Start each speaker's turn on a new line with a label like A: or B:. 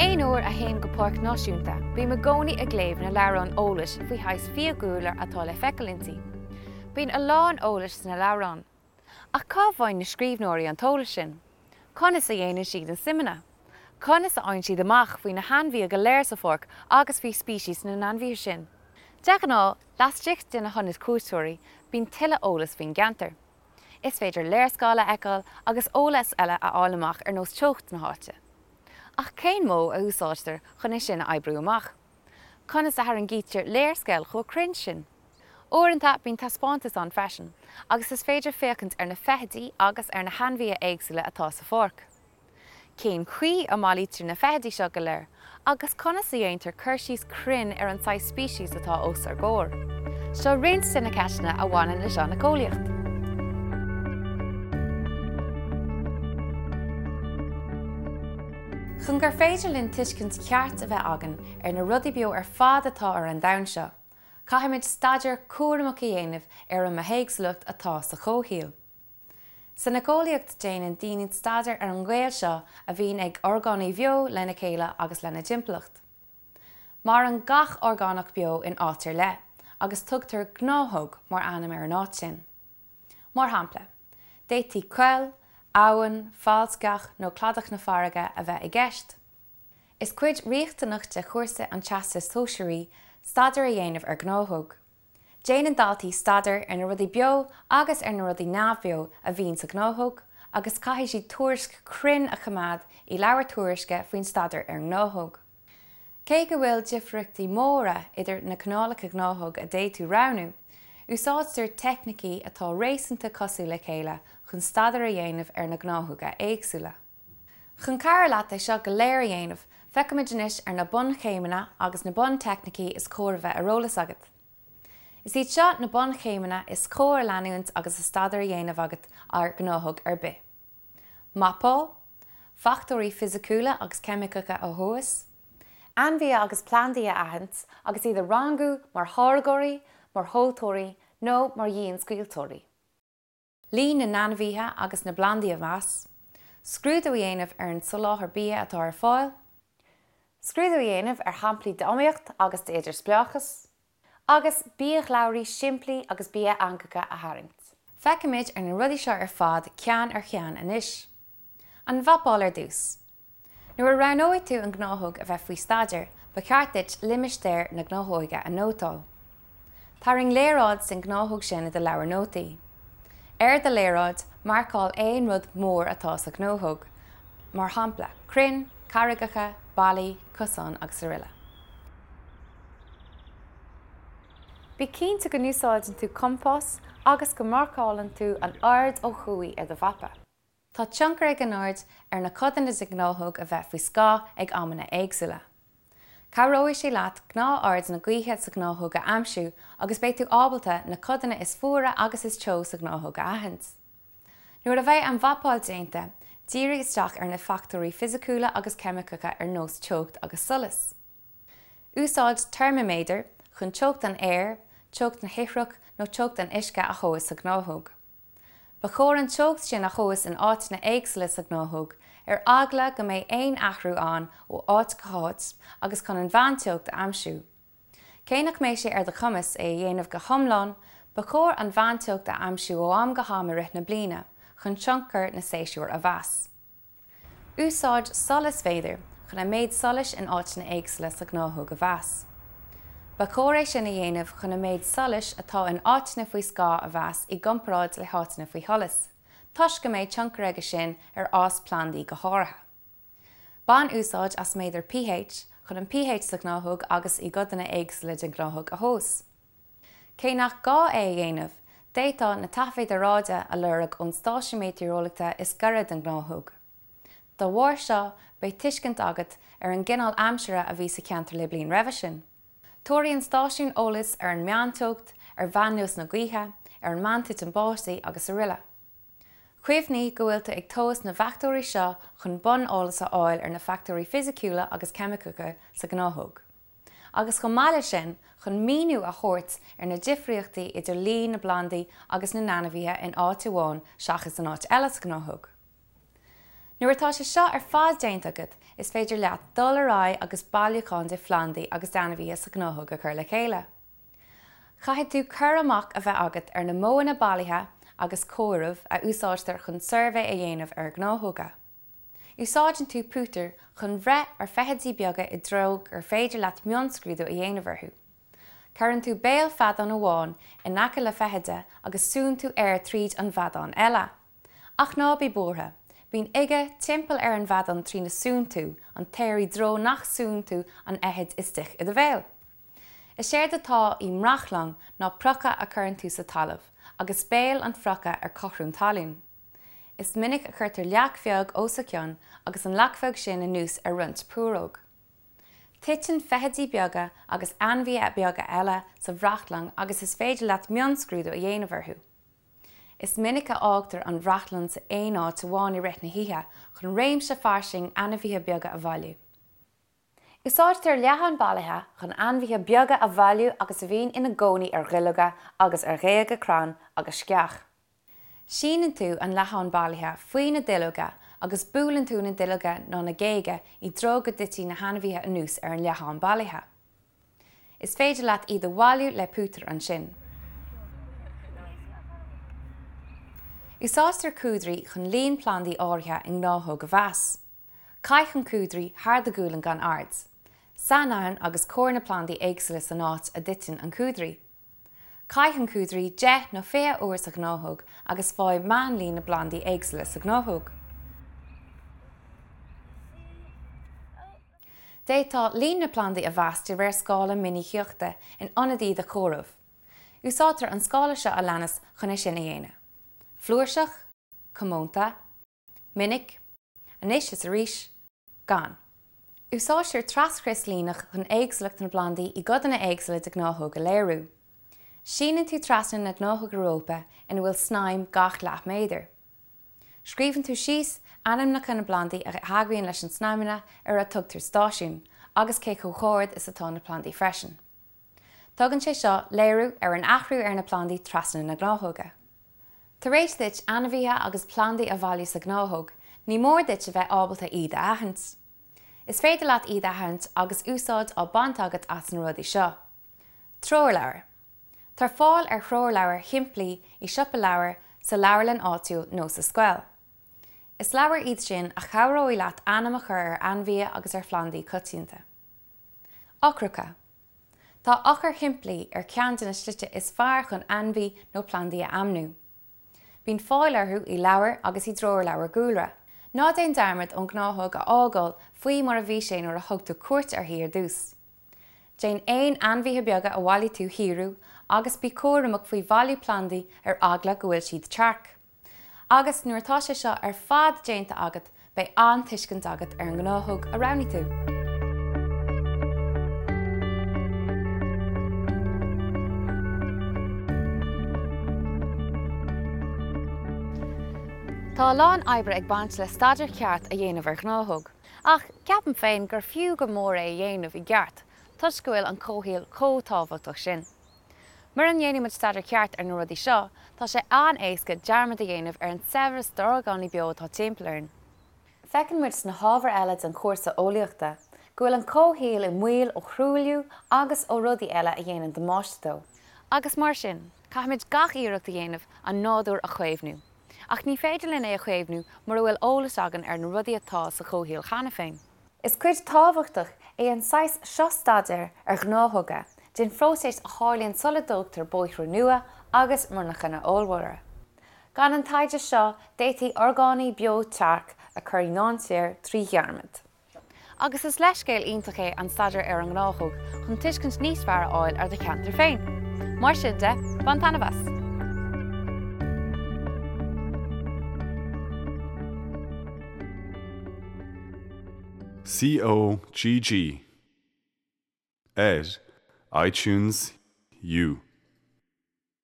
A: Aon uair a théim go páirc náisiúnta, bím i gcónaí ag léamh na leabhrán eolais faoi shaghas fiadhúlra atá le feiceáil inti. Bíonn a lán eolais sna leabhráin. Ach cá bhfaigheann na scríbhneoirí an t-eolas sin? Conas a dhéanann siad na suimeanna? Conas a fhaigheann siad amach faoi na hainmhithe go léir sa pháirc agus faoi speicis na n-ainmhithe sin? De ghnáth, laistigh de na hionaid cuairteoirí, bíonn tuilleadh eolais faoin gceantar. Is féidir léarscáil a fheiceáil agus eolas eile a fháil amach ar nós teocht na háite. Ach cén modh a úsáidtear chun é sin a oibriú amach? Conas a tharraingítear léarscáil chomh cruinn sin? Uaireanta bíonn taispeántas ann freisin agus is féidir féachaint ar na feithidí agus ar na hainmhithe éagsúla atá sa pháirc. Cén chaoi a mbailítear na feithidí seo go léir agus conas a dhéantar cur síos cruinn ar an saghas speicis atá os ár gcomhair? Seo roinnt de na ceisteanna a bhaineann leis an éiceolaíocht. Chun gur féidir linn tuiscint cheart a bheith againn ar na rudaí beo ar fad atá ar an domhan seo, caithfimid staidéar cúramach a dhéanamh ar an mbithéagsúlacht atá sa chomhshaol. San éiceolaíocht déanann daoine staidéar ar an ngaol seo a bhíonn ag orgánaigh bheo lena chéile agus lena dtimpeallacht. Maireann gach orgánach beo in áit ar leith agus tugtar gnáthóg mar ainm ar an áit sin. Mar shampla, d'fhéadfaí coill, abhainn, fálsceach nó cladach na farraige a bheith i gceist. Is cuid riachtanach de chúrsa an Teastais Shóisearaigh staidéar a dhéanamh ar ghnáthóg. Déanann daltaí staidéar ar na rudaí beo agus ar na rudaí neamhbheo a bhíonn sa ghnáthóg agus caithfidh siad tuairisc chruinn a choimeád i leabhar tuairisce faoin staidéar ar an ngnáthóg. Cé go bhfuil difríochtaí móra idir na cineálacha gnáthóg a d'fhéadfaí roghnú, úsáidtear teicnící atá réasúnta cosúil le chéile chun staidéar a dhéanamh ar na gnáthóga éagsúla. Chun cabhrú leat é seo go léir a dhéanamh, feicfimid anois ar na bunchéimeanna agus na bunteicnící is cóir a bheith ar eolas agat. Is iad seo na bunchéimeanna is cóir a leanúint agus staidéar á dhéanamh agat ar ghnáthóg ar bith. Mapáil, fachtóirí fisiciúla agus ceimiceacha a thomhas, ainmhithe agus plandaí a aithint agus iad a rangú mar tháirgeoirí, mar thomhaltóirí nó mar dhianscaoilteoirí. Líon na n-ainmhithe agus na bplandaí a mheas, scrúdú a dhéanamh ar an soláthar bia atá ar fáil, scrúdú a dhéanamh ar shamplaí d'iomaíocht agus d'idirspleáchas, agus biashlabhraí simplí agus bia-eangacha a tharraingt. Feicfimid ar na rudaí seo ar fad ceann ar cheann anois. An mhapáil ar dtús. Nuair a roghnóidh tú an ghnáthóg a bheith faoi staidéar, ba cheart duit limistéar na gnáthóige a nótáil. Tarraing léaráid den ghnáthóg sin i do leabhar nótaí. Ar do léaráid, marcáil aon rud mór atá sa ghnáthóg, mar shampla, crainn, carraigeacha, ballaí, cosáin srl. Bí cinnte go n-úsáideann tú compás agus go marcálann tú an aird ó thuaidh ar do mhapa. Tá tionchar ag an aird ar na codanna den ghnáthóg a bheith faoi scáth ag amanna éagsúla. Cabhróidh sé leat gnáth-aird na gaoithe sa ghnáthóg a aimsiú agus beidh tú ábalta na codanna is fuaire agus is teo sa ghnáthóg a aithint. Nuair a bheidh an mhapáil déanta, dírigh isteach ar na fachtóirí fisiciúla agus ceimiceacha ar nós teocht agus solas. Úsáid teirmiméadar chun teocht an aeir, teocht na hithreach nó teocht an uisce a thomhas sa ghnáthóg. Ba chóir an teocht sin a thomhas in áiteanna éagsúla sa ghnáthóg, ar eagla go mbeidh aon athrú ann ó áit go háit agus chun an mheánteocht a aimsiú. Cé nach mbeidh sé ar do chumas é a dhéanamh go hiomlán, ba chóir an mheánteocht a aimsiú ó am go ham i rith na bliana chun tionchar na séasúr a mheas. Úsáid solasmhéadar chun an méid solais in áiteanna éagsúla sa ghnáthóg a mheas. Ba chóir é sin a dhéanamh chun an méid solais atá in áiteanna faoi scáth a mheas i gcomparáid le háiteanna faoi sholas, toisc go mbeidh tionchar aige sin ar fhás plandaí go háirithe. Bain úsáid as méadar pH chun an pH sa ghnáthóg agus i gcodanna éagsúla den ghnáthóg a thomhas. Cé nach gá é a dhéanamh, d'fhéadfá na taifid aeráide a lorg ón stáisiún meitéareolaíochta is gaire don ghnáthóg. Dá bharr seo, beidh tuiscint agat ar an gcineál aimsire a bhí sa cheantar le bliain roimhe sin. Tabharfaidh an stáisiún eolas ar an meánteocht, ar mheánluas na gaoithe, ar an meántitim báistí agus aroile. Cuimhnigh go bhfuil tú ag tomhas na bhfachtóirí seo chun bun-eolas a fháil ar na fachtóirí fisiciúla agus ceimiceacha sa ghnáthóg. agus chomh maith leis sin chun míniú a thabhairt ar na difríochtaí idir líon na bplandaí agus na n-ainmhithe in áit amháin seachas in áit eile sa ghnáthóg. Nuair atá sé seo ar fad déanta agat, is féidir leat dul ar aghaidh agus bailiúchán de phlandaí agus d'ainmhithe sa ghnáthóg a chur le chéile. Caithfidh tú cur amach a bheith agat ar na modhanna bailithe agus comhairimh a úsáidtear chun suirbhé a dhéanamh ar ghnáthóga. Úsáideann tú pútar chun bhreith ar feithidí beaga i dtreo gur féidir leat mionscrúdú a dhéanamh orthu. Cuireann tú béal feadán amháin in aice le feithide agus súnn tú aer tríd an bhfeadán eile. Ach ná bí buartha, bíonn uige timpeall ar an bhfeadán trína súnn tú an t-aer i dtreo nach súnn tú an fheithid istigh i do bhéal. Is éard atá i mbrachlang ná proca a chuireann tú sa talamh, agus béal an phroca ar cothrom talún. Is minic a chuirtear leac bheag os a chionn agus an leac bheag sin anuas ar roinnt púróg. Titeann feithidí beaga agus ainmhithe beaga eile sa bhrachlang agus is féidir leat mionscrúdú a dhéanamh orthu. Is minic a fhágtar an bhrachlang san aon áit amháin i rith na hoíche chun réimse fairsing ainmhithe beaga a bhailiú. Úsáidtear leatháin bailithe chun ainmhithe beaga a bhailiú agus a bhíonn ina gcónaí ar dhuilleoga agus ar ghéaga crann agus sceach. Síneann tú an leathán bailithe faoi na duilleoga agus buaileann tú na duilleoga nó na géaga i dtreo go dtitfidh na hainmhithe anuas ar an leathán bailithe. Is féidir leat iad a bhailiú le pútar ansin. Úsáidtear cuadraí chun líon plandaí áirithe i ngnáthóg a mheas. Caith an cuadraí thar do ghualainn gan aird. Sainaithin agus comhair na plandaí éagsúla san áit a dtiteann an cuadraí. Caith an cuadraí 10 nó 20 uair sa ghnáthóg agus faigh meánlíon na bplandaí éagsúla sa ghnáthóg. D'fhéadfá líon na bplandaí a mheas de réir scála minicíochta in ionad iad a chomhaireamh. Úsáidtear an scála seo a leanas chun é sin a dhéanamh, flúirseach, comónta, minic, anois is arís, gann. Úsáidtear traschrios líneach chun éagsúlacht na bplandaí i gcodanna éagsúla de ghnáthóg a léiriú. Síneann tú trasna na gnáthóige rópa ina bhfuil snaidhm gach leath méadar. Scríobhann tú síos ainmneacha na bplandaí a theagmhaíonn leis an snaidhmeanna ar a tugtar stáisiún, agus cé chomh hard is atá na plandaí freisin. Tugann sé seo léiriú ar an athrú ar na plandaí trasna na gnáthóige. Tar éis duit ainmhithe agus plandaí a bhailiú sa ghnáthóg, ní mór duit a bheith ábalta iad a aithint. Is féidir leat iad a aithint agus úsáid á baint agat as na rudaí seo. Treoirleabhar. Tá fáil ar threoirleabhair shimplí i siopa leabhar, sa leabharlann áitiúil nó sa scoil. Is leabhair iad sin a chabhróidh leat ainm a chur ar ainmhithe agus ar phlandaí coitianta. Eochracha. Tá eochair shimplí ar cheann de na slite is fearr chun ainmhí nó plandaí a ainmniú. Bíonn fáil orthu i leabhair agus i dtreoirleabhair dhúlra. Ná déan dearmad an ghnáthóg a fhágáil faoi mar a bhí sé nuair a thug tú cuairt uirthi ar dtús. Déan aon ainmhithe beaga a bhailigh tú a shaothrú agus bí cúramach faoi bhailiú plandaí ar eagla go bhfuil siad tearc. Agus nuair atá sé seo ar fad déanta agat beidh an-tuiscint agat ar an ngnáthóg a roghnaigh tú. Tá a lán oibre ag baint le staidéar ceart a dhéanamh ar ghnáthóg. Ach ceapaim féin gur fiú go mór é a dhéanamh i gceart toisc go bhfuil an comhshaol chomh tábhachtach sin. Mura ndéanann muid staidéar ceart ar na rudaí seo, tá sé an-éasca dearmad a dhéanamh ar an saibhreas d'orgánaigh beo atá timpeall orainn. Feiceann muid sna hábhair eile den chúrsa eolaíochta go bhfuil an comhshaol i mbaol ó thruailliú agus ó rudaí eile a dhéanann damáiste dó. Agus mar sin, caithfimid gach iarracht a dhéanamh an nádúr a chaomhnú. Ach ní féidir linn é a chaomhnú mura bhfuil eolas againn ar na rudaí atá sa chomhshaol cheana féin. Is cuid tábhachtach é an saghas seo staidéir ar ghnáthóga den phróiseas a tharlaíonn sula dtógtar bóithre nua agus monarchana ollmhóra. Gan an taighde seo, d'fhéadfaí orgánaigh beo tearc a chur i ndainséar trí dhearmad. Agus is leithscéal iontach é an staidéar ar an ngnáthóg chun tuiscint níos fearr a fháil ar do cheantar féin. Mar sin de, bain taitneamh as!
B: COGG ar iTunes U.